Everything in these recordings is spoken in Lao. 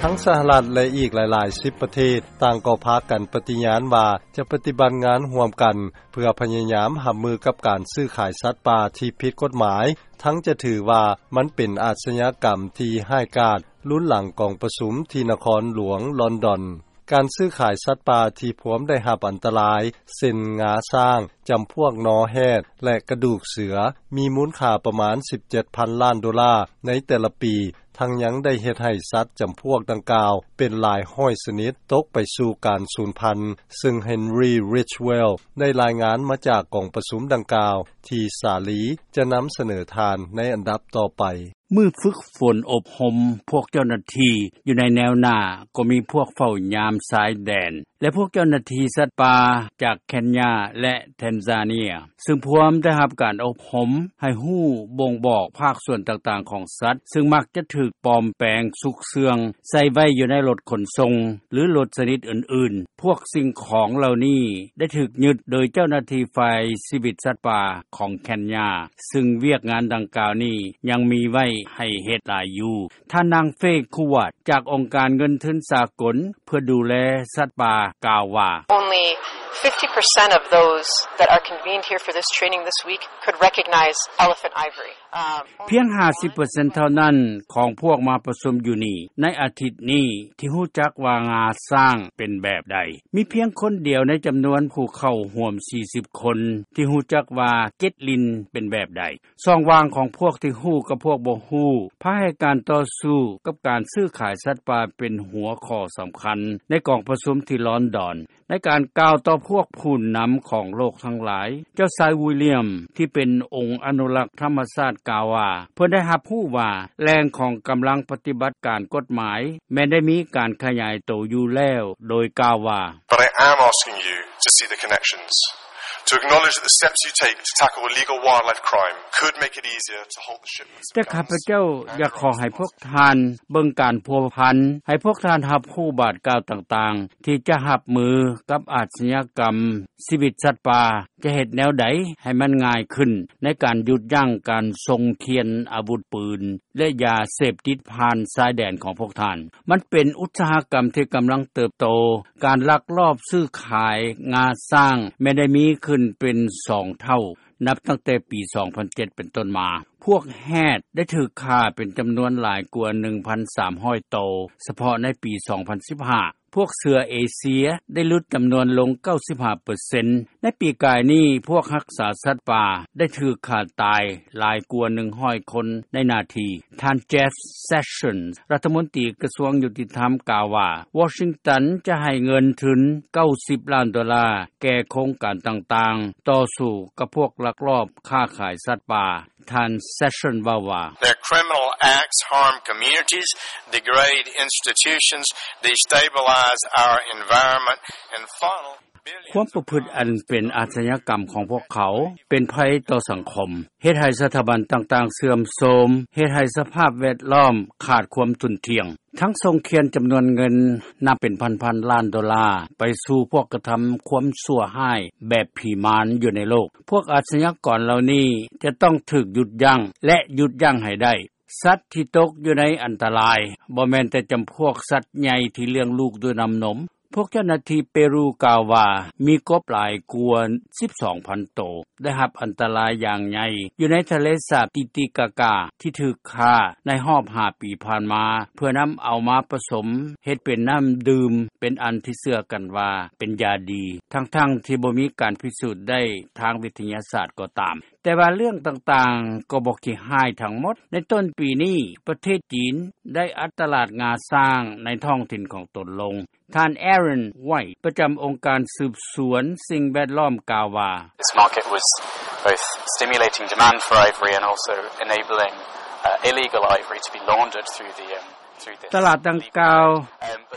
ທັງສະຫະລັດ ແລະ ອີກຫຼາຍໆສິບປະເທດ ຕ່າງກໍພາກັນປະຕິຍານວ່າ ຈະປະຕິບັດງານຮ່ວມກັນ ເພື່ອພະຍາຍາມຮັບມືກັບການຊື້ຂາຍສັດປ່າທີ່ຜິດກົດໝາຍ ທັງຈະຖືວ່າມັນເປັນອາຊຍາກຳທີ່ຮ້າຍກາດ ລຸນຫຼັງກອງປະຊຸມທີ່ນະຄອນຫຼວງລອນດອນ. ການຊື້ຂາຍສັດປ່າທີ່ພວມໄດ້ຮັບອັນຕະລາຍ ເຊັ່ນ ງາຊ້າງ, ຈຳພວກນໍແຮດ ແລະ ກະດູກເສືອ ມີມູນຄ່າປະມານສິບເຈັດພັນລ້ານໂດລາໃນແຕ່ລະປີ, ທັງຍັງໄດ້ເຮັດໃຫ້ສັດຈຳພວກດັ່ງກ່າວເປັນຫຼາຍຮ້ອຍຊະນິດຕົກໄປສູ່ການສູນພັນ, ເຊິ່ງ Henry Ridgwell ໄດ້ລາຍງານມາຈາກກອງປະຊຸມດັ່ງກ່າວ ທີ່ສາລີຈະນຳສະເໜີທ່ານໃນອັນດັບຕໍ່ໄປ. ມື້ຝຶກຝົນອົບຮົມພວກເຈົ້າໜ້າທີ່ຢູ່ໃນແນວໜ້າ ກໍມີພວກເຝົ້າຍາມຊາຍແດນ ແລະ ພວກເຈົ້າໜ້າທີ່ສັດປ່າຈາກເຄນຍາ ແລະ ແທນຊາເນຍ ຊຶ່ງພວມໄດ້ຮັບການອົບຮົມໃຫ້ຮູ້ບົ່ງບອກພາກສ່ວນຕ່າງໆຂອງສັດ ຊຶ່ງມັກຈະຖືກປອມແປງຊຸກເຊື່ອງໃສ່ໄວ້ຢູ່ໃນລົດຂົນສົ່ງ ຫຼື ລົດຊະນິດອື່ນໆ. ພວກສິ່ງຂອງເຫຼົ່ານີ້ໄດ້ຖືກຍຶດໂດຍເຈົ້າໜ້າທີ່ຝ່າຍຊີວິດສັດປ່າຂອງເຄນຍາ ຊຶ່ງວຽກງານດັ່ງກ່າວນີ້ຍັງມີໄວ້ໃຫ້ເຮັດຫຼາຍຢູ່. ທ່ານນາງ ເຟ ຄູວາດ ຈາກອົງການເງິນທຶນສາກົນເພື່ອດູແລສັດປ່າ ກ່າວວ່າ Only fifty percent of those that are convened here for this training this week could recognize elephant ivory. ພຽງຫ້າສິບເປີເຊັນເທົ່ານັ້ນຂອງພວກມາປະຊຸມຢູ່ນີ້ໃນອາທິດນີ້ ທີ່ຮູ້ຈັກວ່າງາຊ້າງເປັນແບບໃດ. ມີພຽງຄົນດຽວໃນຈຳນວນຜູ້ເຂົ້າຮ່ວມສີ່ສິບຄົນ ທີ່ຮູ້ຈັກວ່າເກັດລິນເປັນແບບໃດ. ຊ່ອງວ່າງຂອງພວກທີ່ຮູ້ກັບພວກບໍ່ຮູ້ ພາໃຫ້ການຕໍ່ສູ້ກັບການຊື້ຂາຍສັດປ່າເປັນຫົວຂໍ້ສຳຄັນ ໃນກອງປະຊຸມທີ່ລອນດອນ. ໃນການກ່າວຕໍ່ພວກຜູ້ນຳຂອງໂລກທັງຫຼາຍ, ເຈົ້າຊາຍ ວິລຽມ ທີ່ເປັນອົງອະນຸລັກທຳມະຊາດ ກ່າວວ່າ ເພິ່ນໄດ້ຮັບຮູ້ວ່າແຫຼ່ງຂອງກຳລັງປະຕິບັດການກົດໝາຍ ແມ່ນໄດ້ມີການຂະຫຍາຍໂຕຢູ່ແລ້ວ, ໂດຍກ່າວວ່າ But I am asking you to see the connections, to acknowledge that the steps you take to tackle illegal wildlife crime could make it easier to halt the shipments of ແຕ່ຂ້າພະເຈົ້າຢາກຂໍໃຫ້ພວກທ່ານເບິ່ງການພົວພັນ, ໃຫ້ພວກທ່ານຮັບຮູ້ບາດກ້າວຕ່າງໆ ທີ່ຈະຮັບມືກັບອາຊຍາກຳຊີວິດສັດປ່າ, ຈະເຮັດແນວໃດໃຫ້ມັນງ່າຍຂຶ້ນໃນການຢຸດຢັ້ງການສົ່ງຂຽນອາວຸດປືນ ແລະ ຢາເສບຕິດຜ່ານຊາຍແດນຂອງພວກທ່ານ. ມັນເປັນອຸດສາຫະກຳທີ່ກຳລັງເຕີບໂຕ. ການລັກລອບຊື້ຂາຍງາຊ້າງແມ່ນໄດ້ມີຂຶ້ນເປັນສອງເທົ່າ ນັບຕັ້ງແຕ່ປີສອງພັນເຈັດເປັນຕົ້ນມາ. ພວກແຮດໄດ້ຖືກຂ້າເປັນຈຳນວນຫຼາຍກວ່າໜຶ່ງພັນສາມຮ້ອຍໂຕ ສະເພາະໃນປີສອງພັນສິບຫ້າ. ພວກເສືອເອເຊຍໄດ້ຫຼຸດຈຳນວນລົງເກົ້າສິບຫ້າເປີເຊັນ. ໃນປີກາຍນີ້ ພວກຮັກສາສັດປ່າໄດ້ຖືກຂ້າຕາຍຫຼາຍກວ່າໜຶ່ງຮ້ອຍຄົນໃນໜ້າທີ່. ທ່ານ Jeff Sessions ລັດຖະມົນຕີກະຊວງຍຸຕິທຳ ກ່າວວ່າ ວໍຊິງຕັນຈະໃຫ້ເງິນທຶນເກົ້າສິບລ້ານໂດລາແກ່ໂຄງການຕ່າງໆ ຕໍ່ສູ້ກັບພວກລັກລອບຄ້າຂາຍສັດປ່າ. ທ່ານ Sessions ເວົ້າວ່າ Their criminal acts harm communities, degrade institutions, destabilize our environment, and funnel ຄວາມປະພຶດອັນເປັນອາຊຍາກຳຂອງພວກເຂົາ ເປັນໄພຕໍ່ສັງຄົມ, ເຮັດໃຫ້ສະຖາບັນຕ່າງໆເສື່ອມໂຊມ, ເຮັດໃຫ້ສະພາບແວດລ້ອມຂາດຄວາມທຸ່ນທ່ຽງ, ທັງສົ່ງຂຽນຈຳນວນເງິນນັບເປັນພັນໆລ້ານໂດລາ ໄປສູ່ພວກກະທຳຄວາມຊົ່ວຮ້າຍແບບຜີມານຢູ່ໃນໂລກ. ພວກອາຊຍາກອນເຫຼົ່ານີ້ຈະຕ້ອງຖືກຢຸດຢັ້ງ ແລະ ຢຸດຢັ້ງໃຫ້ໄດ້. ສັດທີ່ຕົກຢູ່ໃນອັນຕະລາຍ ບໍ່ແມ່ນແຕ່ຈຳພວກສັດໃຫຍ່ທີ່ລ້ຽງລູກດ້ວຍນ້ຳນົມ. ພວກເຈົ້າໜ້າທີ່ເປຣູກ່າວວ່າ ມີກົບຫຼາຍກວ່າສິບສອງພັນໂຕ ໄດ້ຮັບອັນຕະລາຍຢ່າງໃຫຍ່ຢູ່ໃນທະເລສາບຕິຕິກາກາ ທີ່ຖືກຂ້າໃນຮອບຫ້າປີຜ່ານມາ ເພື່ອນຳເອົາມາປະສົມເຮັດເປັນນ້ຳດື່ມ ເປັນອັນທີ່ເຊື່ອກັນວ່າເປັນຢາດີ ທັງໆທີ່ບໍ່ມີການພິສູດໄດ້ທາງວິທະຍາສາດກໍຕາມ. ແຕ່ວ່າເລື່ອງຕ່າງໆກໍບໍ່ຂີ້ຮ້າຍທັງໝົດ. ໃນຕົ້ນປີນີ້ ປະເທດຈີນໄດ້ອັດຕະຫຼາດງາຊ້າງໃນທ້ອງຖິ່ນຂອງຕົນລົງ. ທ່ານ Aaron White ປະຈຳອົງການສືບສວນສິ່ງແວດລ້ອມກ່າວວ່າ This market was both stimulating demand for ivory and also enabling, uh, illegal ivory to be laundered through the, um, through the ຕະຫຼາດດັ່ງກ່າວ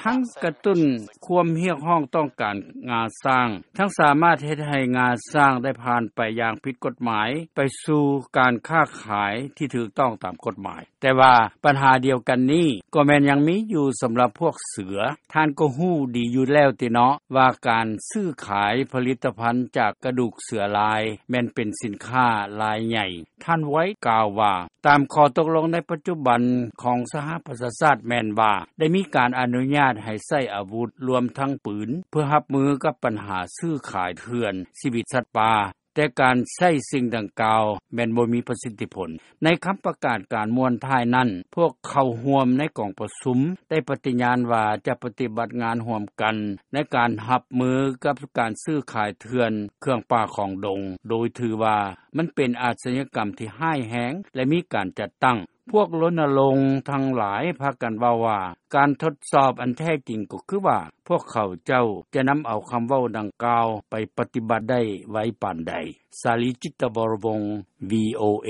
ທັງກະຕຸ້ນຄວາມຮຽກຮ້ອງຕ້ອງການງາຊ້າງ ທັງສາມາດເຮັດໃຫ້ງາຊ້າງໄດ້ຜ່ານໄປຢ່າງຜິດກົດໝາຍ ໄປສູ່ການຄ້າຂາຍທີ່ຖືກຕ້ອງຕາມກົດໝາຍ. ແຕ່ວ່າບັນຫາດຽວກັນນີ້ ກໍແມ່ນຍັງມີຢູ່ສຳລັບພວກເສືອ. ທ່ານກໍຮູ້ດີຢູ່ແລ້ວຕິເນາະ ວ່າການຊື້ຂາຍຜະລິດຕະພັນຈາກກະດູກເສືອລາຍ ແມ່ນເປັນສິນຄ້າລາຍໃຫຍ່. ທ່ານ White ກ່າວວ່າ ຕາມຂໍ້ຕົກລົງໃນປັດຈຸບັນຂອງສະຫະປະຊາຊາດ ແມ່ນວ່າໄດ້ມີການອະນຸຍາດໃຫ້ໃຊ້ອາວຸດ ລວມທັງປືນ ເພື່ອຮັບມືກັບບັນຫາຊື້ຂາຍເຖື່ອນ ຊີວິດສັດປ່າ, ແຕ່ການໃຊ້ສິ່ງດັ່ງກ່າວ ແມ່ນບໍ່ມີປະສິດທິຜົນ. ໃນຄຳປະກາດການມ້ວນທ້າຍນັ້ນ ພວກເຂົ້າຮ່ວມໃນກອງປະຊຸມ ໄດ້ປະຕິຍານວ່າຈະປະຕິບັດງານຮ່ວມກັນ ໃນການຮັບມືກັບການຊື້ຂາຍເຖື່ອນເຄື່ອງປ່າຂອງດົງ ໂດຍຖືວ່າມັນເປັນອາຊຍາກຳທີ່ຮ້າຍແຮງ ແລະມີການຈັດຕັ້ງ. ພວກລົນນະລົງທັງຫຼາຍພາກັນເວົ້າວ່າ ການທົດສອບອັນແທ້ຈິງກໍຄືວ່າ ພວກເຂົາເຈົ້າຈະນຳເອົາຄຳເວົ້າດັ່ງກ່າວໄປປະຕິບັດໄດ້ໄວປານໃດ. ສາລີ ຈິດຕະວໍລະວົງ ວີໂອເອ